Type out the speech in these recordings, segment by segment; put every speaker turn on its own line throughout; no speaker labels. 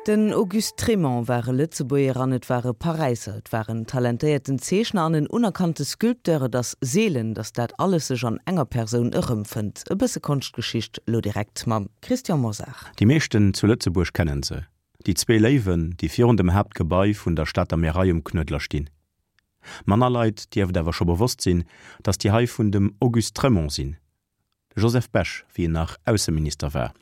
Den Auguste Trémont war e Lëtzebuerger an et war e Paräisser. Et war en talentéierten Zeechner an en unerkannte Sculpteur. Et ass seelen, datt dat alles sech an enger Persoun erëmfënnt. E bësse Konschtgeschicht lo direkt mam Christian Mosar.
Déi meeschten zu Lëtzebuerg kennen se, déi zwee Léiwen, déi virun dem Haaptgebai vun der Stater Märei um Knuedler stinn. Manner Leit dierft awer scho bewosst sinn, datt déi hei vun dem Auguste Trémont sinn. De Joseph Bech, wéi en nach Ausseminister war,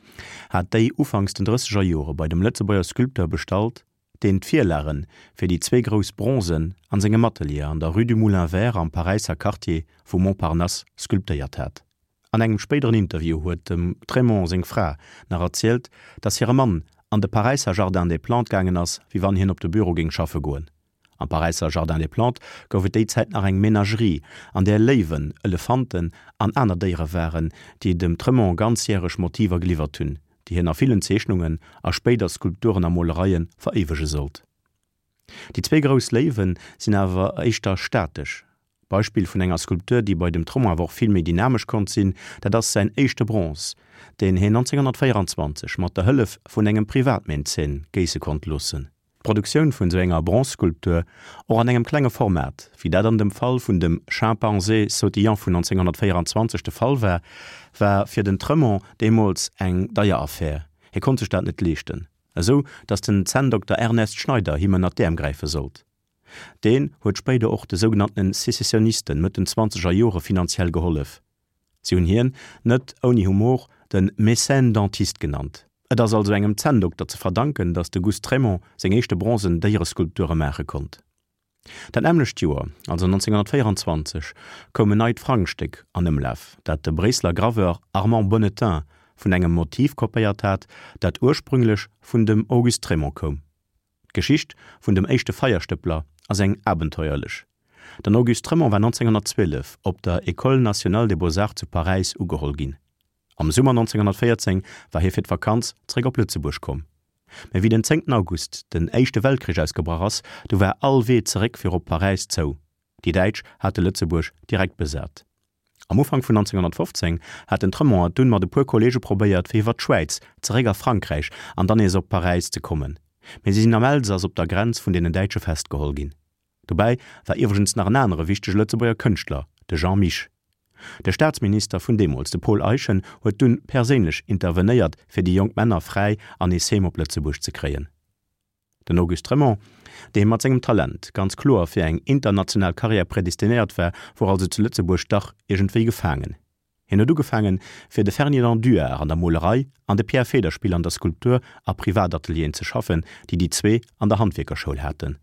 hat déi ufanks den drësseger Jore bei dem Lëtzebuerger Sculpteur bestallt, deen d'Virlage fir déi zwee grouss Bronzen an sengem Atelier an der Rue du Moulin Vert am Paräisser Quartier vu Montparnasse sculptéiert hat. An engem spéideren Interview huet dem Trémont seng Fra nach erzielt, datt hire Mann an de Paräisser Jardin des Plantes gaangen ass, wéi wann hien op de Büro géing schaffe goen. Am Paräisser Jardin des Plantes gouf et déi Zäit nach eng Menagerie, an där Léiwen, Elefanten an aner Déiere waren, déi dem Trémont ganzjäreg Motiver geliwwert hunn, déi hien a villen Zeechnungen a spéider Skulpturen a Molereie veréiwege sollt. Déi zwéi grouss Léiwe sinn awer éischter statesch. Beispill vun enger Skulptur, déi bei dem Trémont awer och vill méi dynamesch konnt sinn, dat ass säin éischte Bronze, deen hien 1924 mat der Hëllef vun engem Privatmäzen géisse konnt loossen. D'Produktioun vun sou enger Bronzeskulptur, och an engem klenge Format, wéi dat an dem Fall vun dem Chimpanzé sautillant vun 1924 de Fall war, war fir den Tremont deemools eng deier Affär. Hie konnt sech dat net leeschten, esou datt den Zänndokter Ernest Schneider him ënner d'Äerm gräife sollt. Deen huet spéider och de sougenanntene Secessionisten Mëtt den zwanzeger Jore finanziell gehollef. Si hunn hien, net ouni Humor, de Mécène dentiste genannt. Et ass also engem Zänndokter ze verdanken, datt de Gust Trémont seng éischte bronzen Déiereskulpture maache konnt. Dat nämmlecht Joer, also 1924, koum en neit Frangstéck an Ëmlaf, dat de Bréisseler Graveur Armand Bonnetain vun engem Motiv kopéiert hat, dat ursprünglech vun dem Auguste Trémont koum. D'Geschicht vun dem éischte Feierstëppler ass eng abenteuerlech. Den Auguste Trémont war 1912 op der École nationale des beaux-arts zu Paräis ugeholl ginn. Am Summer 1914 war hie fir d'Vakanz zeréck op Lëtzebuerg komm. Mä wéi den 10 August den Éischte Weltkrich ausgebrach ass, du war all Wee zeréck fir op Paräis zou. Déi Däitsch hate Lëtzebuerg direkt besat. Am Ufank vun 1915 hat den Tremont et dunn mat e puer Kolleege probéiert fir iwwer d'Schwäiz zeréck a Frankräich an dann nees op Paräis ze kommen, mee si sinn am Elsass op der Grenz vun deenen Däitsche festgeholl ginn. Dobäi war iwwregens nach en anere wichtege Lëtzebuerger Kënschtler, de Jean Mich. De Staatsminister vun deemools, de Paul Eyschen, huet dunn perséinlech intervenéiert fir déi jonk Männer fräi an nees heem op Lëtzebuerg ze kréien. Den Auguste Trémont, dee mat sengem Talent ganz kloer fir eng international Karriär prädestinéiert war, wor also zu Lëtzebuerg dach iergendwéi gefaangen. Hien huet ugefaangen, fir de Ferdinand Duard an der Molerei an de Pierre Federspiel an der Skulptur a Privatatelieren ze schaffen, déi déi zwee an der Handwierkerschoul haten.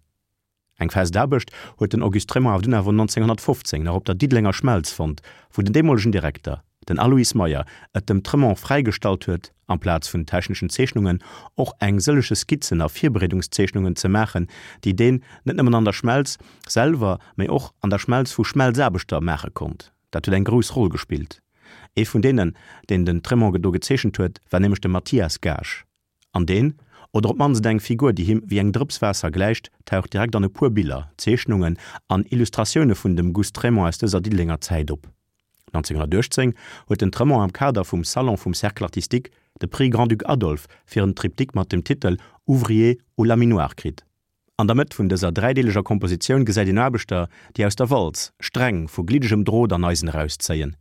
Eng fest Aarbecht huet den Auguste Trémont awer dunn awer 1915 nach op der Diddelenger Schmelz fonnt, wou den deemolegen Direkter, den Aloyse Meyer, et dem Trémont fräigestallt huet, amplaz vun techneschen Zeechnungen och eng sëllege Skizzen a Virbereedungszeechnungen ze maachen, déi deen net nëmmen an der Schmelz selwer, mä och an der Schmelz vu Schmelzaarbechter maache konnt. Dat huet eng grouss Roll gespillt. Ee vun deenen, deen den Trémont do gezeechent huet, war nämlech de Mathias Gaasch. An deen, oder op d'mannst eng Figur, déi him wéi eng Drëps Waasser gläicht, taucht direkt an e puer Biller, Zeechnungen an Illustratioune vun dem Gust Trémont aus dëser Diddelenger Zäit op. 1918 huet den Trémont am Kader vum Salon vum Cercle artistique de Prix Grand-Duc Adolphe fir en Triptyque mat dem Titel Ouvriers au laminoir kritt. An der Mëtt vun dëser dräideeleger Kompositioun gesäit een Aarbechter, déi aus der Walz Sträng vu gliddegem Drot an Eisen erauszéien.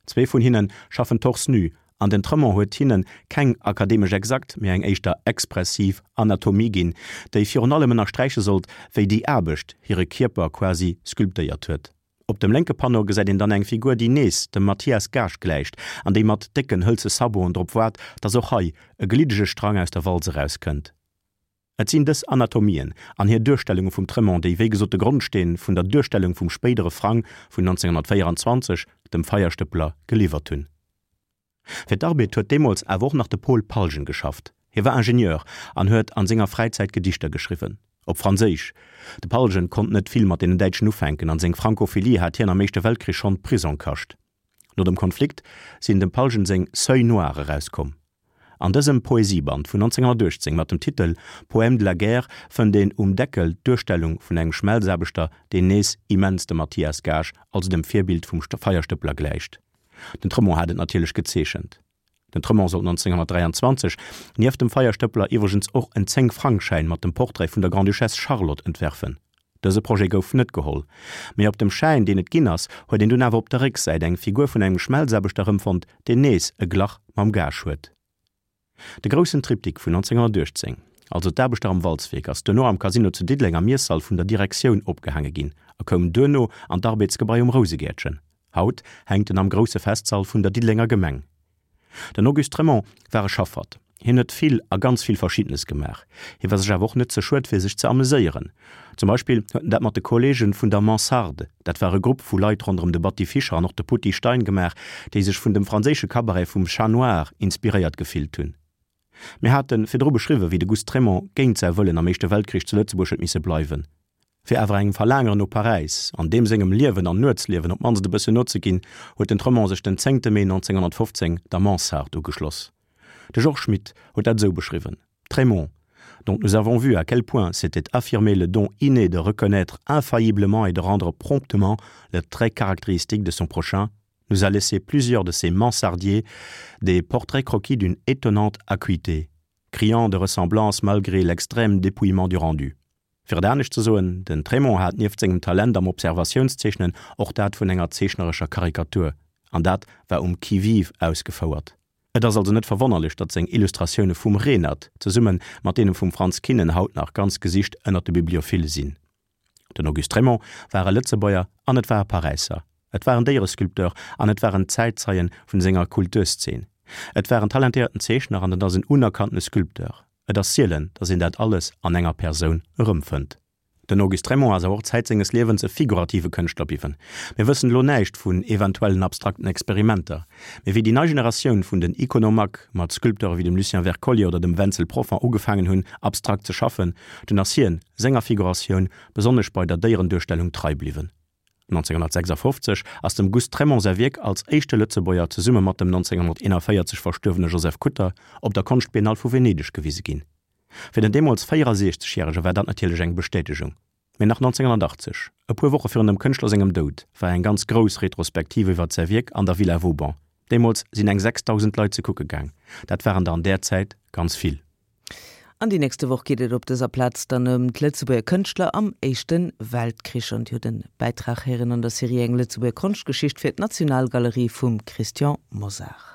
Zwee vun hinne schaffen torse nu an den Tremont huet hinne keng akademesch exakt, mee eng éischter expressiv Anatomie ginn, déi virun allem ënnersträiche sollt, wéi déi Aarbecht hire Kierper quasi sculptéiert huet. Op dem lénke Panneau gesäit een dann eng Figur, déi nees dem Mathias Gaasch gläicht an déi mat décken hëlze Saboten drop waart, dass och hei e gliddege Strang aus der Walz erauskënnt. Et sinn dës Anatomien an hir Duerstellunge vum Tremont, déi wéi gesot de Grondsteen vun der Duerstellung vum spéidere Frang vun 1924, dem Feierstëppler, geliwwert hunn. Fir d'Arbed huet deemools awer och nach de Paul Palgen geschafft. Hie war Ingenieur an huet an senger Fräizäit Gedichter geschriwwen, op Franséisch. De Palgen konnt net vill mat deenen Däitschen ufänken an seng Francophilie hat hien am Éischte Weltkrich schonn Prisong kascht. No dem Konflikt sinn dem Palgen seng Seuil noir erauskomm. An dësem Poesieband vun 1918 mat dem Titel Poème de la guerre fënnt een um Deckel d'Duerstellung vun engem Schmelzaarbechter, deen nees immens dem Mathias Gaasch, also dem Virbild vum Feierstëppler gläicht. Den Tremont hat et natierlech gezeechent. Den Tremont sollt 1923 nieft dem Feierstëppeler iwwregens och en Zéng-Frang-Schäin mat dem Portrait vun der Grande-Duchesse Charlotte entwerfen. Dëse Projet gouf net geholl, mee op dem Schäin, deen et ginn ass, huet een dunn awer op der Récksäit eng Figur vun engem Schmelzaarbechter erëmfonnt, deen nees e Glach mam Gage huet. De groussen Triptyque vun 1918, also d'Aarbechter am Walzwierk, ass duerno am Casino zu Diddeleng am Iessall vun der Direktioun opgehaange ginn a koum duerno an d'Arbeetsgebai um Rousegäertchen. Haut hänkt en am grousse Festsall vun der Diddelenger Gemeng. Den Auguste Trémont war e Schaffert. Hien huet vill a ganz vill Verschiddenes gemaach. Hie war sech awer och net ze schued fir sech ze ameséieren. Zum Beispill huet en dat mat de Kolleegen vun der Mansarde, dat war e Grupp vu Leit ronderëm de Batty Fischer an och de Poutty Stein gemaach, déi sech vun dem franséische Cabaret vum Chat Noir inspiréiert gefillt hunn. Mir hate virdru beschriwwen, wéi de Gust Trémont géint säi Wëllen am Éischte Weltkrich zu Lëtzebuerg huet misse bleiwen. Fir awer engem Verlaangeren no Paräis an deem sengem Liewen an Nuetsliewen op d'mannst e bëssen nozeginn, huet den Tremont sech den zéngte Mee 1915 der Mansarde ugeschloss. De Georges Schmitt huet dat esou beschriwwen, Trémont, dont nous avons vu à quel point s'était affirmé le don inné de reconnaître infailliblement et de rendre promptement le trait caractéristique de son prochain, nous a laissé plusieurs de ses mansardiers des portraits croquis d'une étonnante acuité, criant de ressemblance malgré l'extrême dépouillement du rendu. Fir et anescht ze soen, den Trémont hat nieft sengem Talent am Observatiounszeechnen och dat vun enger zeechnerescher Karikatur, an dat war um qui-vive ausgefouert. Et ass also net verwonnerlech, datt seng Illustratioune vum Renert zesumme mat deene vum Frantz Kinnen haut nach ganz gesicht ënnert de Bibliophile sinn. Den Auguste Trémont war e Lëtzebuerger an et war e Paräisser. Et war en Déieresculpteur an et war en Zäitzeien vun senger Kulturszeen. Et war en talentéierten Zeechner an et ass en unerkanntene Sculpteur. Et ass sielen, datt een dat alles an enger Persoun erëmfënnt. Den Auguste Trémont ass awer och Zäit senges Liewens e figurative Kënschtler bliwwen. Mir wëssen elo näischt vun eventuellen abstrakten Experimenter, mee wéi déi nei Generatioun vun den Iconomaques mat Sculpteure wéi dem Lucien Wercollier oder dem Wenzel Profant ugefaangen hunn, abstrakt ze schaffen, dunn ass hien senger Figuratioun, besonnesch bei der Déierenduerstellung, trei bliwwen. 1956 ass dem Gust Trémont säi Wierk als éischte Lëtzebuerger zesumme mat dem 1941 verstuerwene Joseph Kutter op der Konschtbiennale vu Venedeg gewise ginn. Fir den deemools 64 Järege war dat natierlech eng Bestätegung. Mee nach 1980, e puer Woche virun dem Kënschtler sengem Doud, war eng ganz grouss Retrospektiv iwwert säi Wierk an der Villa Vauban. Deemools sinn eng 6.000 Leit ze kucke gaang. Dat waren der an där Zäit ganz vill.
An déi nächste Woch geet et op dëser Plaz dann ëm d'Lëtzebuerger Kënschtler am Éischte Weltkrich. An Dir hutt e Bäitrag héieren an der Serie Eng Lëtzebuerger Konschtgeschicht fir d'Nationalgalerie vum Christian Mosar.